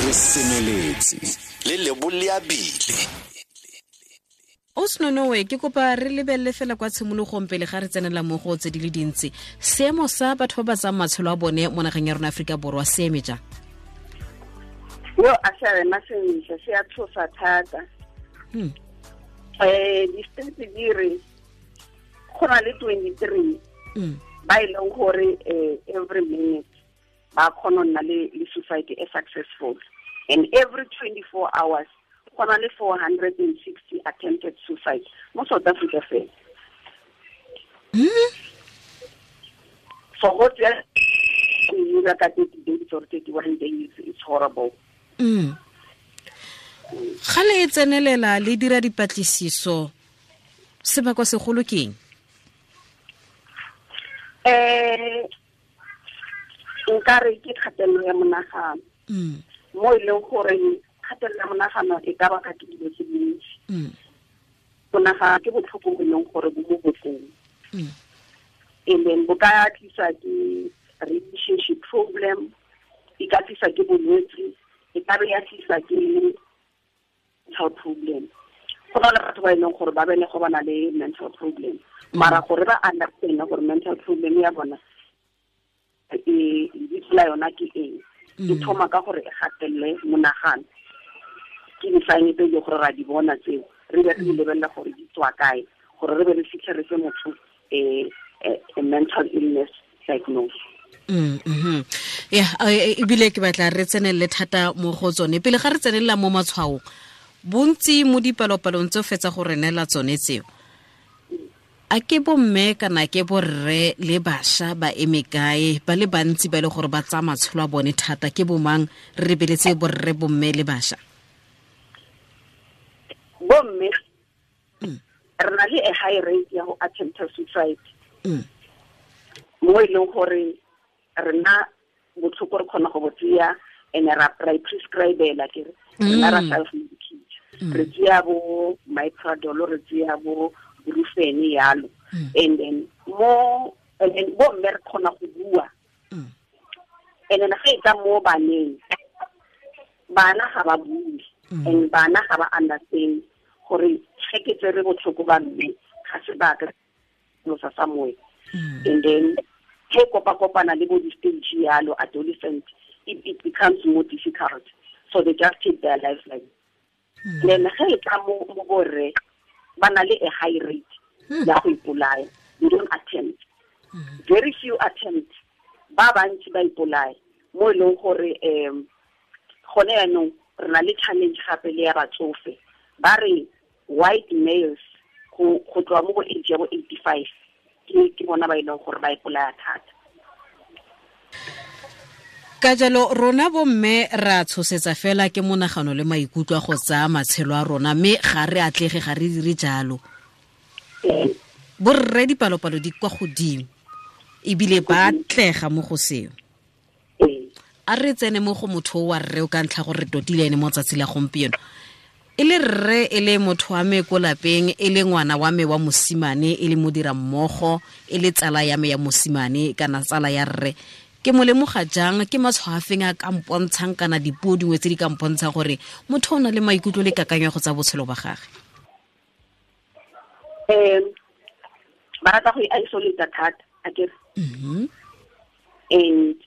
Re semeletse le leboleabile. O Senonowe, ke kopa re lebelele fela kwa tshimologong pele ga re tsenela mo go tse di le dintsi. Seemo sa batho ba ba tsayang matshelo a bone mo nageng ya rona Aforika Borwa se eme jang? Yo, a se a ema sentle, se a tshosa thata. Di-stats di re go na le 23 ba e leng gore every minute ba kgona go nna le suicide e successful, and every 24 hours go na le 460 attempted suicide mo South Africa fela. So go tsaya ka 30 days or 31 days, it's horrible. Ga le tsenelela le dira dipatlisiso, sebakwa segolo ke eng? Nkare ke kgatelelo ya monagano. Mo e leng gore kgatelelo ya monagano e ka baka ke dilo tse dintsi. Monagano ke botlhoko bo e leng gore bo mo bokong. And then bo ka tlisa ke relationship problem, e ka tlisa ke bolwetse, e ka be ya tlisa ke mental problem. Go na le batho ba e leng gore ba belego ba na le mental problem, mara gore ba understand gore mental problem ya bona e lebitso la yona ke eng, e thoma ka gore e gatelele monagano. Ke di-sign tse e leng gore ra di bona tseo, re be re di lebelela gore di tswa kae, gore re be re fitlhe re fe motho a mental illness diagnosis. Ya, ebile ke batla re tsenelele thata mo go tsone. Pele ga re tsenelela mo matshwaong, bontsi mo dipalopalong tse o fetsa go re neela tsone tseo, a ke bomme kana ke borre le bašwa ba eme kae? Ba le bantsi ba e le gore ba tsaya matshelo a bone thata ke bomang? Re lebeletse borre, bomme le bašwa. Bomme, re na le a high rate ya go attempt suicide. Mo e leng gore rena botlhoko re kgona go bo tseya and ra prescribela, ke re rena ra self medicate. Re tseya bo Myprodol, re tseya bo Brufen yalo. And then bo mme re kgona go bua. And then ga e tla mo baneng, bana ga ba bue and bana ga ba understand gore ge ke tsere botlhoko ba mme ga se ba ka losa somewhere. And then ge kopa-kopana le bo di-stage yalo, adolescent, it becomes more difficult, so they just take their lives like. Then ge e tla mo borre, ba na le a high rate ya go ipolaya. They don't attempt, very few attempt, ba bantsi ba ipolaya, mo e leng gore gone yaanong re na le challenge gape le ya batsofe. Ba re white males go tloa mo go age ya bo 85 ke bona ba e leng gore ba ipolaya thata. Ka jalo rona bomme ra tshosetsa fela ke monagano le maikutlo a go tsaya matshelo a rona, mme ga re atlege, ga re dire jalo. Borre dipalopalo di kwa godimo ebile ba atlega mo go seo. A re tsene mo go motho wa rre o ka ntlha gore re totile ene mo tsatsi la gompieno, e le rre, e le motho wa me ko lapeng, e le ngwana wa me wa mosimane, e le modira mmogo, e le tsala ya me ya mosimane kana tsala ya rre. Ke mo lemoga jang? Ke matshwao a feng a ka mpontshang kana dipuo dingwe tse di ka mpontshang gore motho o na le maikutlo le kakanyo go tsa botshelo ba gage? Ba rata go isolate thata, akere? And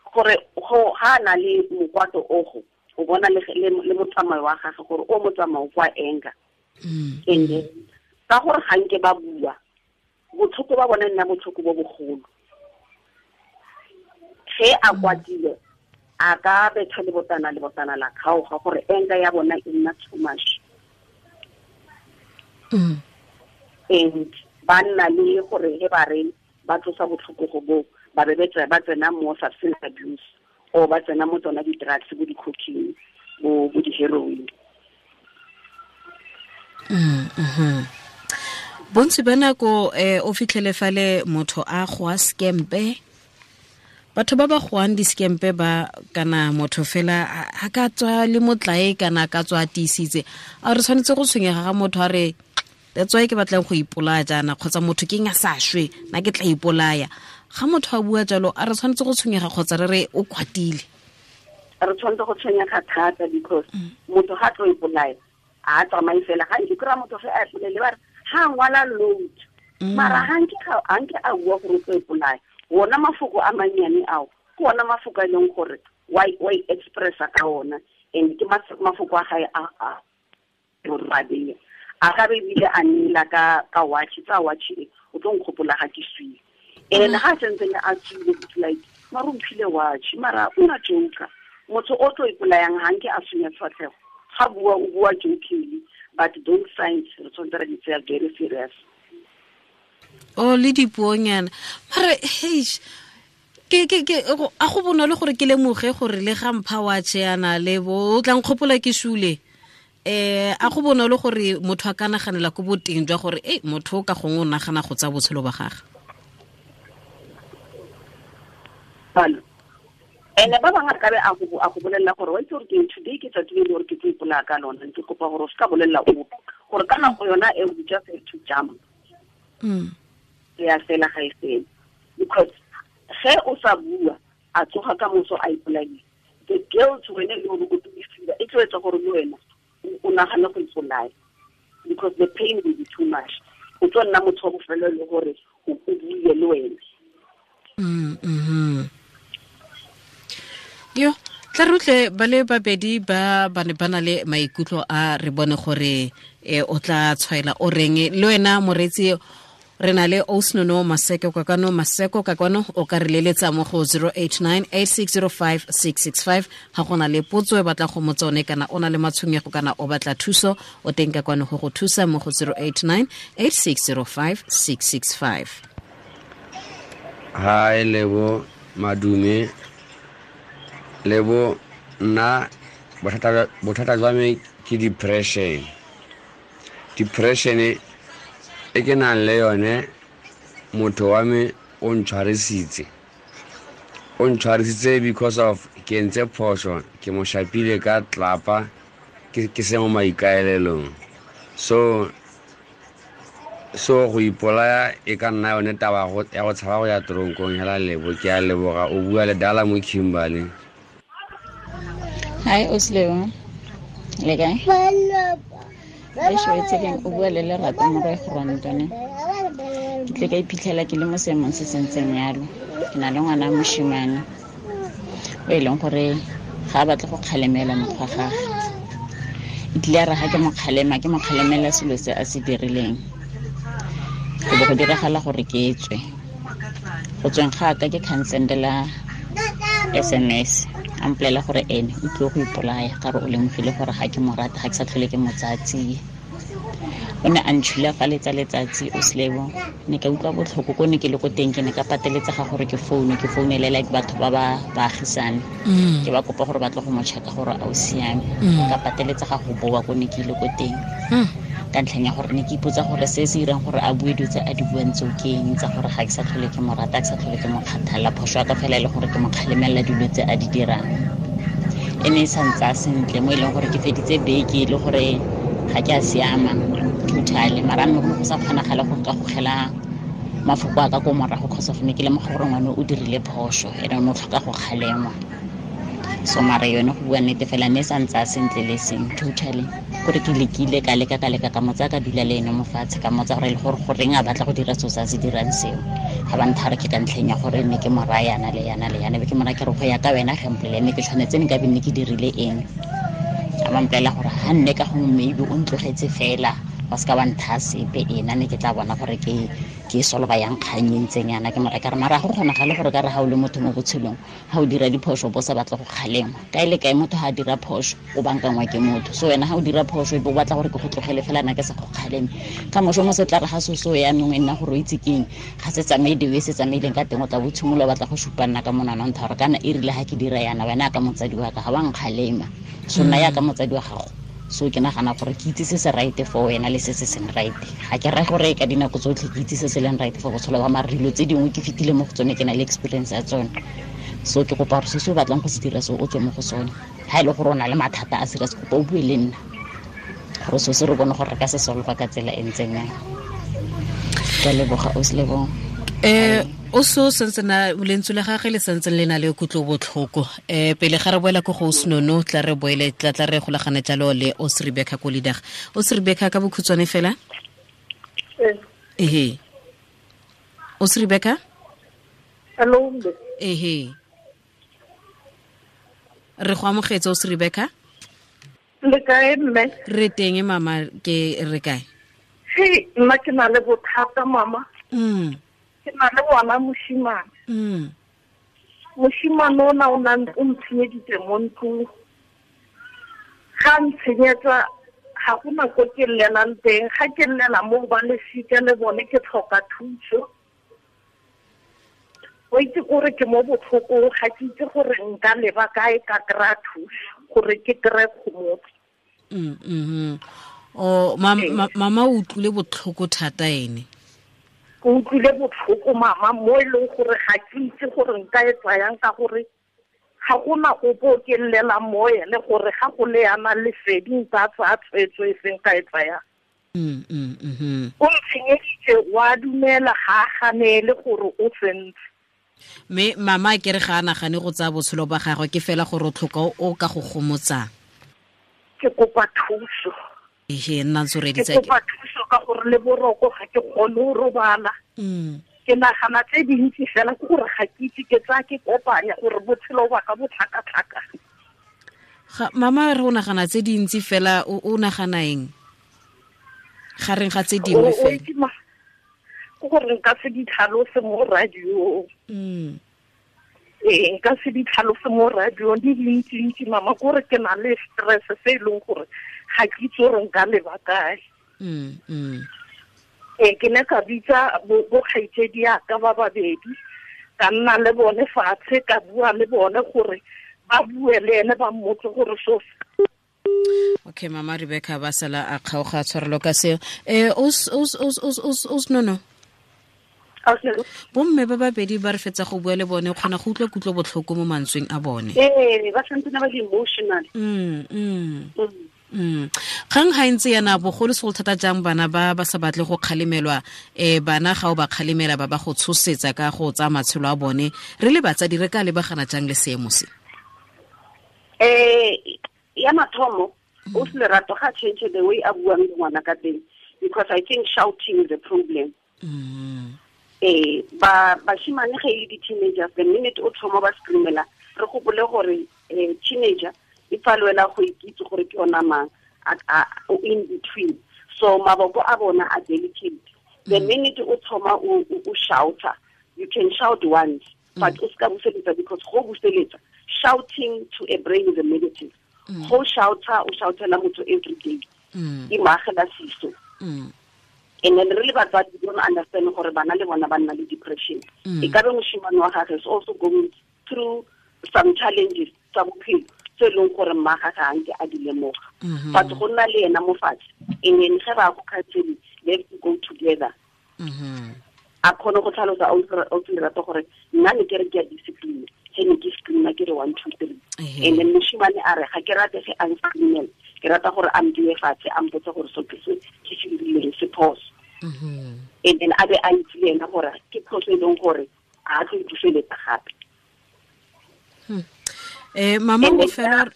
gore go ha na le mokwato ogo, o bona le motsamao wa gagwe gore o motsamao kwa anger. And then ka gore ga nke ba bua, botlhoko ba bona nna botlhoko bo bogolo. Ge a kwatile, a ka betha le botana, le botana la kgaoga, gore anger ya bona e nna too much. And ba nna le gore he ba re ba tlosa botlhoko go bo ba be ba tsena mo substance abuse or ba tsena mo tsona di-drugs, bo di-cocaine, bo di-heroin. Bontsi ba nako o fitlhele fale motho a goa skempe, batho ba ba goang di-skempe ba, kana motho fela a ka tswa le motlae kana a ka tswa a tiisitse. A re tshwanetse go tshwenyega ga motho a re, "That's why ke batlang go ipolaya jaana," kgotsa "Motho ke eng a sa shwe, nna ke tla ipolaya"? Ga motho a bua jalo, a re tshwanetse go tshwenyega kgotsa re re o kwatile? Re tshwanetse go tshwenyega thata because motho ga tlo ipolaya a tsamaye fela ga nke kry-a motho ge a ipolele ba re ga ngwala load mara ga nke a bua gore o tlo ipolaya wona mafoko a mannyane ao ke ona mafoko a e leng gore wa i-expressa ka ona and ke mafoko a gae a gore a ka be ebile a neela ka watch tsa watch e o tlo nkgopola ga ke swile and ga sentsene a tswile it's like mara o mphile watch mara o na joker motho o tlo ipolayang ga nke a sunya sefatlhego ga bua o bua jokingly but those signs re tshwanetse ra di tseya very serious. O le dipuonyana mare heish ke a go bonolo gore ke lemoge gore le ga mpha watch yana le bo o tla nkgopola ke sule a go bonolo gore motho a ka naganela ko boteng jwa gore e motho o ka gongwe o nagana go tsa botshelo ba gagwe. Ene ba bangwe ka be a go bolelela gore wa itse gore ke today ke tsatsi le gore ke tlo ipolaya ka lona ke kopa gore o se ka bolelela ope gore ka nako yona e o just have to jump. Ya fela ga e fele because ge o sa bua a tsoga ka moso a ipolaile the guilt wena le gore o tlo e tlo etsa gore le wena o nagane go ipolaya because the pain will be too much. O tlo nna motho wa bofelo le gore o buile le wena. Yo tla rutle ba le babedi ba ne ba na le maikutlo a re bone gore o tla tshwaela o reng le wena moretsi re na le Osnono Maseko ka kwano Maseko ka kwano o ka re leletsa mo go 0898605665 ga gona le potso e batla go motsone kana o na le matshwenyego kana o batla thuso o teng ka kwano go go thusa mo go 0898605665. Hi Lebo Madume Lebo nna bothata jwa me ke depression. Depression e ke nang le yone motho wa me o ntshwarisitse because of ke ntse phoso ke mo shapile ka tlapa ke se mo maikaelelong so go ipolaya e ka nna yone taba ya go tshaba go ya toronkong hela Lebo ke a leboga o bua le Dala mo Kimberley. Hi Osleo, le kae? O bua le Lerato Morwe Grontone. Ke tle ka iphitlhela ke le mo seemong se sentseng yalo. Ke na le ngwana moshimane o e leng gore ga a batle go kgalemela mokgwa gagwe. E tlile ya re ga ke mo kgalema ke mo kgalemela selo se a se dirileng. Go bo go diragala gore ke tswe. Go tsweng ga ka ke cancel-ela SMS. A mpolelela gore ene o tlile go ipolaya ka re o lemogile gore ga ke mo rata ga ke sa tlhole ke mo tsatsi. O ne a ntšhulafaletsa letsatsi o Slebo ne ka utlwa botlhoko ko ne ke le ko teng ke ne ka pateletsega gore ke foune ke founele like batho ba ba baagisane ke ba kopa gore ba tle go mo check-a gore a o siame ka pateletsega go boa ko ne ke ile ko teng ka ntlheng ya gore ne ke ipotsa gore se se irang gore a bue dilo tse a di buang tseo ke eng tsa gore ga ke sa tlhole ke mo rata ke sa tlhole ke mo kgathala phoso ya ka fela e le gore ke mo kgalemelela dilo tse a di dirang e ne e sa ntsa sentle mo e leng gore ke feditse beke e le gore ga ke a siama totally mara mme go sa kgonagale go ka gogela mafoko a ka ko morago cause of ne ke lemoga gore ngwane o dirile phoso ene o ne o tlhoka go kgalengwa so mara yone go bua nnete fela ne e sa ntsa sentle le seng totally gore ke lekile ka leka ka motsa ka dula le ene mo fatshe ka motsa gore e le gore goreng a batla go dira seo se a se dirang seo ga ba nthare ke ka ntlheng ya gore ne ke mo raya yana le yana le yana be ke mora ke re go ya ka wena gempolele ne ke tshwanetse ne ka be ne ke dirile eng a ba mpolelela gore ga nne ka gongwe maybe o ntlogetse fela wa se ka wa ntha sepe ena ne ke tla bona gore ke solva yang kgang e ntseng yana ke mora ka re mara go kgonagale gore ka re ga o le motho mo botshelong ga o dira diphoso bo sa batla go kgalengwa kae le kae motho ga a dira phoso o bankangwa ke motho so wena ga o dira phoso e be o batla gore ke go tlogele fela nna ke sa go kgaleme ka moso mo se tla re ga soso yanong e nna gore o itse keng ga se tsamaye the way se tsamaileng ka teng o tla bo tshimolola o batla go supa nna ka monwana o ntha gore kana e rile ga ke dira yana wena ka motsadi wa ka ga wa nkgalema so nna yaka motsadi wa gago so ke nagana gore ke itse se se right for wena le se se seng right ga ke raya gore ka dinako tsotlhe ke itse se se leng right for botshelo ba mara dilo tse dingwe ke fetile mo go tsone ke na le experience ya tsone so ke kopa gore se se o batlang go se dira se o tswe mo go sone ga e le gore o na le mathata a serious kopa o bue le nna gore so se re bone gore re ka se solva ka tsela e ntseng yang. Ke a leboga o se leboga. O so sentse na lentswe la gagwe le sentse le na le kutlo botlhoko. Pele ga re boela ko go Snono, tla re boele tla re golagane jalo le Os Rebecca Kolidag. Os Rebecca ka bokhutshwane fela? Ehe. Os Rebecca? Hello. Ehe. Re go amogetse Os Rebecca? Le kae mme? Re teng mama, ke re kae? He, nna ke na le bothata mama. Ke na le ngwana moshimane. Moshimane ona o ntshenyeditse mo ntlong. Ga ntshenyetsa ga go na ko ke llelang teng, ga ke llela mo ba lesika le bone ke tlhoka thuso. O itse gore ke mo botlhokong, ga ke itse gore nka leba kae ka kry-a thuso gore ke kry-e kgomotso. O mama o utlwile botlhoko thata ene. Ke utlwile botlhoko mama mo e leng gore ga ke itse gore nka e tsayang ka gore ga gona ope o ke llelang mo ene gore ga go le yana lesedi nka tsaya tshwetso e seng ka e tsayang. O ntshenyeditse wa dumela ga a ganele gore o sentse. Mme mama ke re ga a nagane go tsaya botshelo ba gagwe, ke fela gore o tlhoka o ka go gomotsang. Ke kopa thuso. Ehe, nna ntse o reditse ke kopa thuso ka gore le boroko ga ke kgone go robala. Ke nagana tse dintsi fela ke gore ga ke itse ke tsaya ke kopanya gore botshelo ba ka bo tlhakatlhaka. Ga mama re o nagana tse dintsi fela, o nagana eng? Gareng ga tse dingwe fela. Ke gore nka se di tlhalose mo radio. Ee, nka se di tlhalose mo radio di dintsi-ntsi mama, kore ke na le stress se e leng gore ga ke itse gore nka leba kae. Ee, ke ne ka bitsa bo kgaitsedi yaka ba babedi, ka nna le bone fatshe, ka bua le bone gore ba bue le ene ba mmotse gore so. Okay, mama Rebecca ba sala a kgaoga tshwarelo ka seo. Os nono. Bomme ba babedi ba re fetsa go bua le bone, kgona go utlwa kutlo botlhoko mo mantsweng a bone. Ee, ba santse ba le emotional. Kgang ga ntse yana bogolo segolo thata jang bana ba ba sa batle go kgalemelwa, bana ga o ba kgalemela ba ba go tshosetsa ka go tsaya matshelo a bone. Re le batsadi re ka lebagana jang le seemo se? Ya mathomo o se lerato ga change the way a buang le ngwana ka teng, because I think shouting is a problem. Ba bashimane ge e le di-teenagers, the minute o thoma ba screamela, re gopole gore teenager e palwela go ikitse gore ke yona mang, o in between, so maboko a bona a delicate. The minute o thoma o shouta, you can shout once, but o ska buseletsa, because go buseletsa, shouting to a brain is a negative. Go shouta, o shoutela motho every day, e maagela siso. And then really batswadi don't understand gore bana le bona ba nna le depression. E ka be moshimane wa gagwe is also going through some challenges tsa bophelo tse e leng gore mma gagwe ga nke a di lemoga. But go nna le ena mo fatshe, and then ge ba go counseling, they have to go together. A kgone go tlhalosa o lerato gore nna ne ke re ke a discipline, ge ne ke screama ke re 1 2 3. And then moshimane a re ga ke rate ge a nscreamela, ke rata gore a mdiwe fatshe a mpotse gore so ke se ke se dirileng se phoso. And then a be a itse le ena gore ke phoso e leng gore a tlo ipuseletsa gape. Mama o fela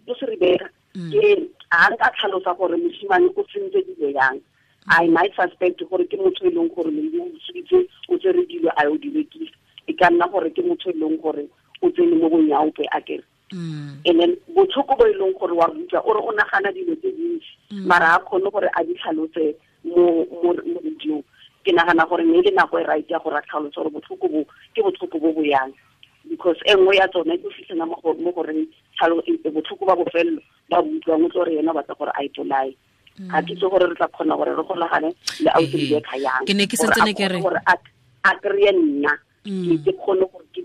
o se Rebecca ke a nka tlhalosa gore moshimane o tsentse dilo yang. I might suspect gore ke motho e leng gore maybe o utswitse, o tsere dilo a o di rekisa. E ka nna gore ke motho e leng gore o tsene mo bonyaope a kere. And then botlhoko bo e leng gore wa utlwa o re o nagana dilo tse dintsi, mara a kgone gore a di tlhalose mo radiong. Ke nagana gore mme le nako e right ya gore a tlhalose gore botlhoko bo ke botlhoko bo bo yang, because e nngwe ya tsone e fitlhela mo goreng botlhoko ba bofelelo ba utlwang o tlo re yena o batla gore a ipolaye. Ga ke itse gore re tla kgona gore re golagane le ausi Rebecca yang. Ke ne ke santse ke re gore a kry-e nna ke kgone gore ke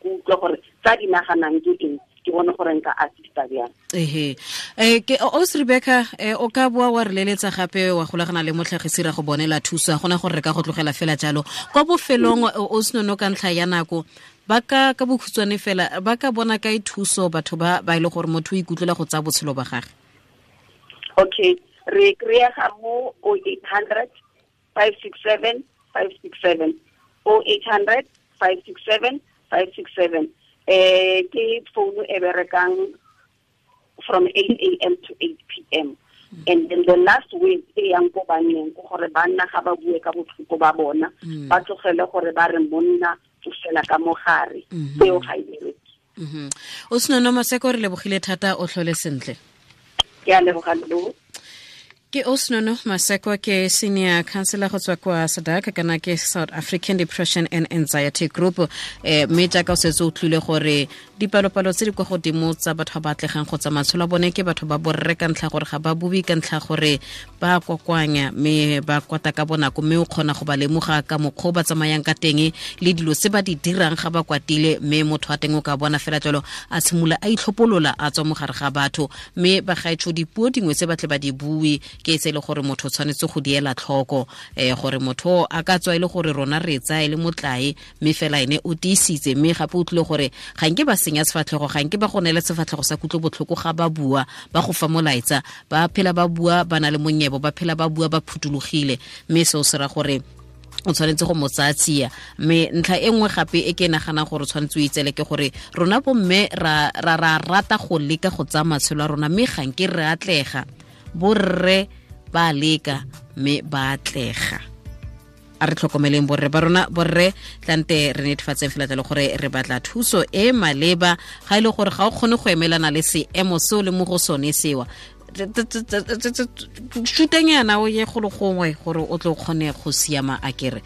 utlwe gore tsa di naganang ke eng, ke bone gore nka assista bjang. Ehe. Ke Os Rebecca, o ka boa wa re leletsa gape wa golagana le motlhagisi ra go bonela thuso, gona gore re ka go tlogela fela jalo. Kwa bofelong o senono ka ntlha ya nako, ba ka bokhutshwane fela ba ka bona kae thuso batho ba ba ile gore motho o ikutlwela go tsaya botshelo ba gagwe? Okay, re kry-ega mo 0800 567 567. 0800 567 567. Ke phone e berekang from 8 a.m. to 8 p.m. And then the last word e yang ko banneng ke gore banna ga ba bue ka botlhoko ba bona, ba tlogele gore ba re monna o fela ka mogare, seo ga e bereke. O Senono Maseko, re lebogile thata, o tlhole sentle. Ke a leboga lo. Ke Osnono Maseko, ke senior counselor go tswa kwa SADAG, kana ke South African Depression and Anxiety Group. Mme jaaka o setse o tlile gore dipalopalo tse di kwa godimo tsa batho ba batlegang go tsa matshelo a bone ke batho ba borre ka ntlha gore ga ba bue, ka ntlha gore ba kokoanya mme ba kwata ka bonako, mme o kgona go ba lemoga ka mokgwa o ba tsamayang ka teng le dilo tse ba di dirang ga ba kwatile, mme motho wa teng o ka bona fela jalo a tshimolola a itlhopolola a tswa mogare ga batho. Mme bagaetsho, dipuo dingwe tse ba tle ba di bue ke tse e le gore motho o tshwanetse go di ela tlhoko, gore motho a ka tswa e le gore rona re tsaya e le motlae, mme fela ene o tiisitse, mme gape o tlile gore ga nke ba senya sefatlhego, ga nke ba go neela sefatlhego sa kutlobotlhoko ga ba bua, ba go fa molaetsa, ba phela ba bua ba na le monyebo, ba phela ba bua ba phuthologile, mme seo se ra gore o tshwanetse go mo tsaya tsia. Mme ntlha e nngwe gape e ke naganang gore o tshwanetse o itsele ke gore rona bomme ra ra rata go leka go tsaya matshelo a rona, mme ga nke re atlega. Borre ba leka mme ba atlega. A re tlhokomeleng borre ba rona, borre tlante re netefatseng fela jalo gore re batla thuso e maleba. Ga e le gore ga o kgone go emelana le seemo seo le mo go sone sewa, shutanyana o ye golo gongwe gore o tlo kgone go siama. A kere